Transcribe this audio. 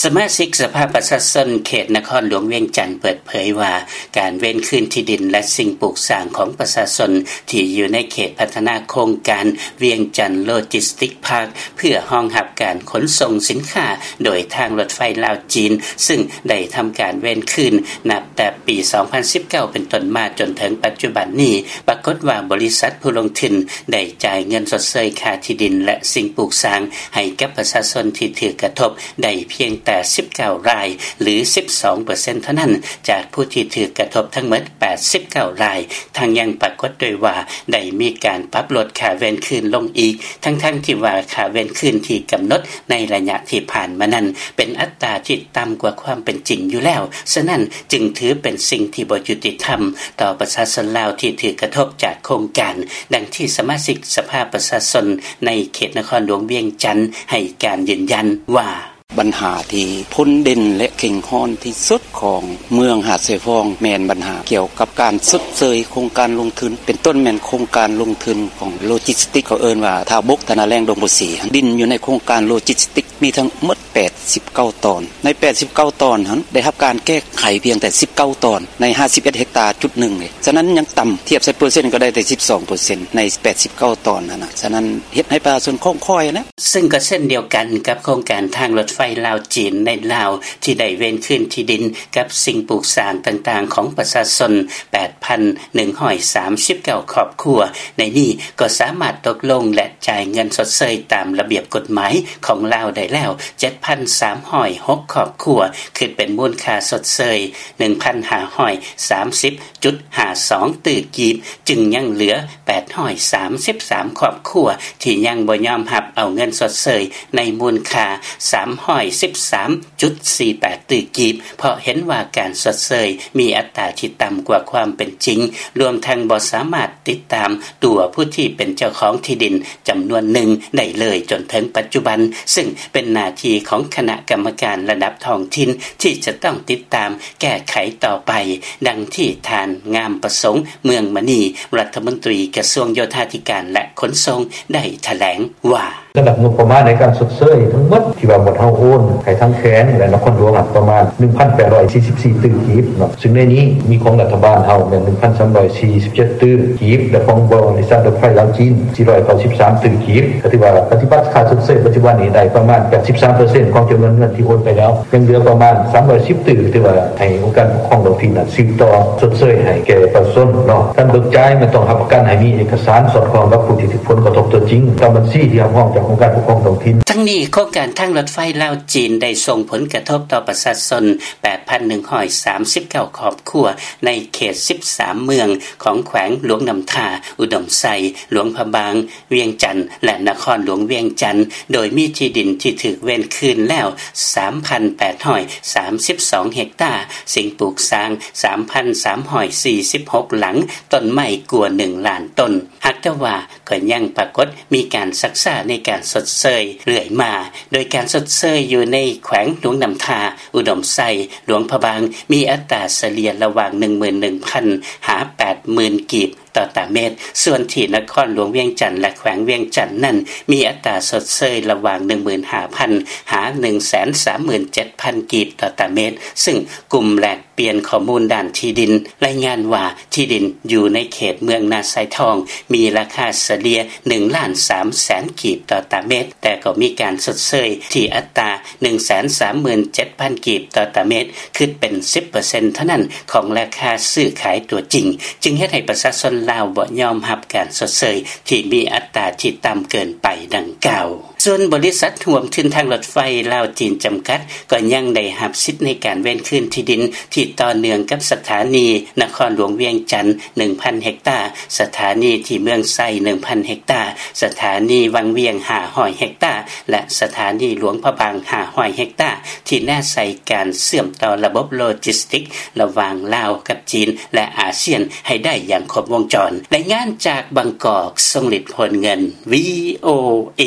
ສະມາຊິກສະພາປະຊາຊົນເຂດນະຄອນຫຼວງວຽງຈັນເປີດເຜີຍວ່າ ການເວນຄືນທີ່ດິນ ແລະ ສິ່ງປູກສ້າງຂອງປະຊາຊົນ ທີ່ຢູ່ໃນເຂດພັດທະນາໂຄງການວຽງຈັນໂລຈິສຕິກພາກ ເພື່ອຮອງຮັບການຂົນສົ່ງສິນຄ້າໂດຍທາງລົດໄຟລາວ-ຈີນ ຊຶ່ງໄດ້ທຳການເວນຄືນນັບແຕ່ປີສອງພັນສິບເກົ້າເປັນຕົ້ນມາຈົນເຖິງປັດຈຸບັນນີ້ ປາກົດວ່າບໍລິສັດຜູ້ລົງທຶນໄດ້ຈ່າຍເງິນຊົດເຊີຍຄ່າທີ່ດິນ ແລະ ສິ່ງປູກສ້າງໃຫ້ກັບປະຊາຊົນທີ່ຖືກກະທົບໄດ້ພຽງແຕ່ສິບເກົ້າລາຍ ຫຼື ສິບສອງເປີເຊັນເທົ່ານັ້ນ ຈາກຜູ້ທີ່ຖືກກະທົບທັງໝົດແປດສິບເກົ້າລາຍ. ທັງຍັງປາກົດດ້ວຍວ່າ ໄດ້ມີການປັບລົດຄ່າເວນຄືນລົງອີກ ທັງໆທີ່ວ່າຄ່າເວນຄືນທີ່ກຳນົດໃນໄລຍະທີ່ຜ່ານມານັ້ນ ເປັນອັດຕາທີ່ຕ່ຳກວ່າຄວາມເປັນຈິງຢູ່ແລ້ວ, ສະນັ້ນຈຶ່ງຖືເປັນສິ່ງທີ່ບໍ່ຍຸຕິທຳຕໍ່ປະຊາຊົນລາວທີ່ຖືກກະທົບຈາກໂຄງການ, ດັ່ງທີ່ສະມາຊິກສະພາປະຊາຊົນໃນເຂດນະຄອນຫຼວງວຽງຈັນໃຫ້ການຢືນຢັນວ່າ: ບັນຫາທີ່ພົ້ນເດັ່ນ ແລະ ເຄັ່ງຮ້ອນທີ່ສຸດຂອງເມືອງຫາດຊາຍຟອງ ແມ່ນບັນຫາກ່ຽວກັບການຊົດເຊີຍໂຄງການລົງທຶນ ເປັນຕົ້ນແມ່ນໂຄງການລົງທຶນຂອງໂລຈິສຕິກ ເຂົາເອີ້ນວ່າທ່າບົກ ທ່ານາແລ້ງ ດົງໂພສີ. ດິນຢູ່ໃນໂຄງການໂລຈິສຕິກມີທັງໝົດແປດສິບເກົ້າຕອນ. ໃນແປດສິບເກົ້າຕອນຫັ້ນ ໄດ້ຮັບການແກ້ໄຂພຽງແຕ່ສິບເກົ້າຕອນ ໃນຫ້າສິບເອັດເຮັກຕາຈຸດໜຶ່ງເດ. ສະນັ້ນຍັງຕ່ຳ ທຽບໃສ່ເປີເຊັນກໍໄດ້ແຕ່ສິບສອງເປີເຊັນ ໃນແປດສິບເກົ້າຕອນຫັ້ນນະ. ສະນັ້ນເຮັດໃຫ້ປະຊາຊົນຂ້ອງຄ້ອຍນະ. ເຊິ່ງກໍເຊັ່ນດຽວກັນກັບໂຄງການທາງລົດໄຟລາວ-ຈີນໃນລາວ ທີ່ໄດ້ເວນຄືນທີ່ດິນກັບສິ່ງປູກສ້າງຕ່າງໆຂອງປະຊາຊົນແປດພັນໜຶ່ງຮ້ອຍສາມສິບເກົ້າຄອບຄົວ, ໃນນີ້ກໍສາມາດຕົກລົງ ແລະ ຈ່າຍເງິນຊົດເຊີຍຕາມລະບຽບກົດໝາຍຂອງລາວໄດ້ແລ້ວເຈັດພັນສາມຮ້ອຍຫົກຄອບຄົວ, ຄິດເປັນມູນຄ່າຊົດເຊີຍໜຶ່ງພັນຫ້າຮ້ອຍສາມສິບຈຸດຫ້າສອງຕື້ກີບ, ຈຶ່ງຍັງເຫຼືອແປດຮ້ອຍສາມສິບສາມຄອບຄົວທີ່ຍັງບໍ່ຍອມຮັບເອົາເງິນຊົດເຊີຍໃນມູນຄ່າສາມຮ້ອຍສິບສາມຈຸດສີ່ແປດຕື້ກີບ ເພາະເຫັນວ່າການຊົດເຊີຍມີອັດຕາທີ່ຕ່ຳກວ່າຄວາມເປັນຈິງ, ລວມທັງບໍ່ສາມາດຕິດຕາມຕົວຜູ້ທີ່ເປັນເຈົ້າຂອງທີ່ດິນຈຳນວນໜຶ່ງໄດ້ເລີຍຈົນເຖິງປັດຈຸບັນ, ເຊິ່ງເປັນໜ້າທີ່ຂອງຄະນະກຳມະການລະດັບທ້ອງຖິ່ນທີ່ຈະຕ້ອງຕິດຕາມແກ້ໄຂຕໍ່ໄປ, ດັ່ງທີ່ທ່ານ ງາມປະສົງ ເມືອງມະນີ ລັດຖະມົນຕີກະຊວງໂຍທາທິການ ແລະ ຂົນສົ່ງ ໄດ້ຖະແຫຼງວ່າ: ລະດັບງົບປະມານໃນການຊົດເຊີຍທັງໝົດທີ່ວ່າໝວດເຮົາໂອນໃຫ້ທາງແຂວງ ແລະ ນະຄອນຫຼວງ ປະມານໜຶ່ງພັນແປດຮ້ອຍສີ່ສິບສີ່ຕື້ກີບເນາະ, ຊຶ່ງໃນນີ້ມີຂອງລັດຖະບານເຮົາແມ່ນໜຶ່ງພັນສາມຮ້ອຍສີ່ສິບເຈັດຕື້ກີບ ແລະ ຂອງບໍລິສັດລົດໄຟລາວ-ຈີນສີ່ຮ້ອຍເກົ້າສິບສາມຕື້ກີບ, ກໍຖືວ່າປະຕິບັດຄ່າຊົດເຊີຍປັດຈຸບັນນີ້ໄດ້ປະມານແປດສິບສາມເປີເຊັນຂອງຈຳນວນເງິນທີ່ໂອນໄປແລ້ວ, ຍັງເຫຼືອປະມານສາມຮ້ອຍສິບຕື້ ຖືວ່າໃຫ້ອົງການປົກຄອງທ້ອງຖິ່ນສືບຕໍ່ຊົດເຊີຍໃຫ້ແກ່ປະຊາຊົນເນາະ. ການເບີກຈ່າຍແມ່ນຕ້ອງຮັບປະກັນໃຫ້ມີເອກະສານສອດຄ່ອງກັບຜູ້ທີ່ຖືກຜົນກະທົບຕົວຈິງ ຕາມບັນຊີທີ່ຮັບຮອງຈາກອົງການປົກຄອງທ້ອງຖິ່ນ. ທັງນີ້ ໂຄງການທາງລົດໄຟລາວ-ຈີນໄດ້ສົ່ງຜົນກະທົບຕໍ່ປະຊາຊົນແປດພັນໜຶ່ງຮ້ອຍສາມສິບເກົ້າຄອບຄົວ ໃນເຂດສິບສາມເມືອງຂອງແຂວງຫຼວງນ້ຳທາ, ອຸດົມໄຊ, ຫຼວງພະບາງ, ວຽງຈັນ ແລະ ນະຄອນຫຼວງວຽງຈັນ, ໂດຍມີທີ່ດິນທີ່ຖືກເວນຄືນແລ້ວສາມພັນແປດຮ້ອຍສາມສິບສອງເຮັກຕາ, ສິ່ງປູກສ້າງສາມພັນສາມຮ້ອຍສີ່ສິບຫົກຫຼັງ, ຕົ້ນໄມ້ກວ່າໜຶ່ງລ້ານຕົ້ນ. ຫາກແຕ່ວ່າກໍຍັງປາກົດມີການຊັກຊ້າໃນການຊົດເຊີຍເລື້ອຍມາ, ໂດຍການຊົດເຊີຍຢູ່ໃນແຂວງຫຼວງນ້ຳທາ, ອຸດົມໄຊ, ຫຼວງພະບາງ ມີອັດຕາສະເລ່ຍລະຫວ່າງໜຶ່ງໝື່ນໜຶ່ງພັນຫາແປດໝື່ນກີບຕໍ່ຕາເມັດ, ສ່ວນທີ່ນະຄອນຫຼວງວຽງຈັນ ແລະ ແຂວງວຽງຈັນນັ້ນ ມີອັດຕາຊົດເຊີຍລະຫວ່າງໜຶ່ງໝື່ນຫ້າພັນຫາໜຶ່ງແສນສາມໝື່ນເຈັດພັນກີບຕໍ່ຕາເມັດ, ຊຶ່ງກຸ່ມແລກປ່ຽນຂໍ້ມູນດ້ານທີ່ດິນລາຍງານວ່າ ທີ່ດິນຢູ່ໃນເຂດເມືອງນາຊາຍທອງ ມີລາຄາສະເລ່ຍໜຶ່ງລ້ານສາມແສນກີບຕໍ່ຕາເມັດ, ແຕ່ກໍມີການຊົດເຊີຍທີ່ອັດຕາໜຶ່ງແສນສາມໝື່ນເຈັດພັນກີບຕໍ່ຕາເມັດ, ຄິດເປັນສິບເປີເຊັນເທົ່ານັ້ນຂອງລາຄາຊື້ຂາຍຕົວຈິງ, ຈຶ່ງເຮັດໃຫ້ປະຊາຊົນລາວບໍ່ຍອມຮັບການຊົດເຊີຍທີ່ມີອັດຕາທີ່ຕ່ຳເກີນໄປດັ່ງກ່າວ. ສ່ວນບໍລິສັດຮ່ວມທຶນທາງລົດໄຟລາວ-ຈີນຈຳກັດ ກໍຍັງໄດ້ຮັບສິດໃນການເວນຄືນທີ່ດິນທີ່ຕໍ່ເນື່ອງກັບສະຖານີນະຄອນຫຼວງວຽງຈັນໜຶ່ງພັນເຮັກຕາ, ສະຖານີທີ່ເມືອງໄຊໜຶ່ງພັນເຮັກຕາ, ສະຖານີວັງວຽງຫ້າຮ້ອຍເຮັກຕາ ແລະ ສະຖານີຫຼວງພະບາງຫ້າຮ້ອຍເຮັກຕາ ທີ່ແນໃສ່ການເຊື່ອມຕໍ່ລະບົບໂລຈິສຕິກລະຫວ່າງລາວກັບຈີນ ແລະ ອາຊຽນໃຫ້ໄດ້ຢ່າງຄົບວົງຈອນ. ລາຍງານຈາກບາງກອກ, ຊົງລິດ ໂພນເງິນ, ວີໂອເອ.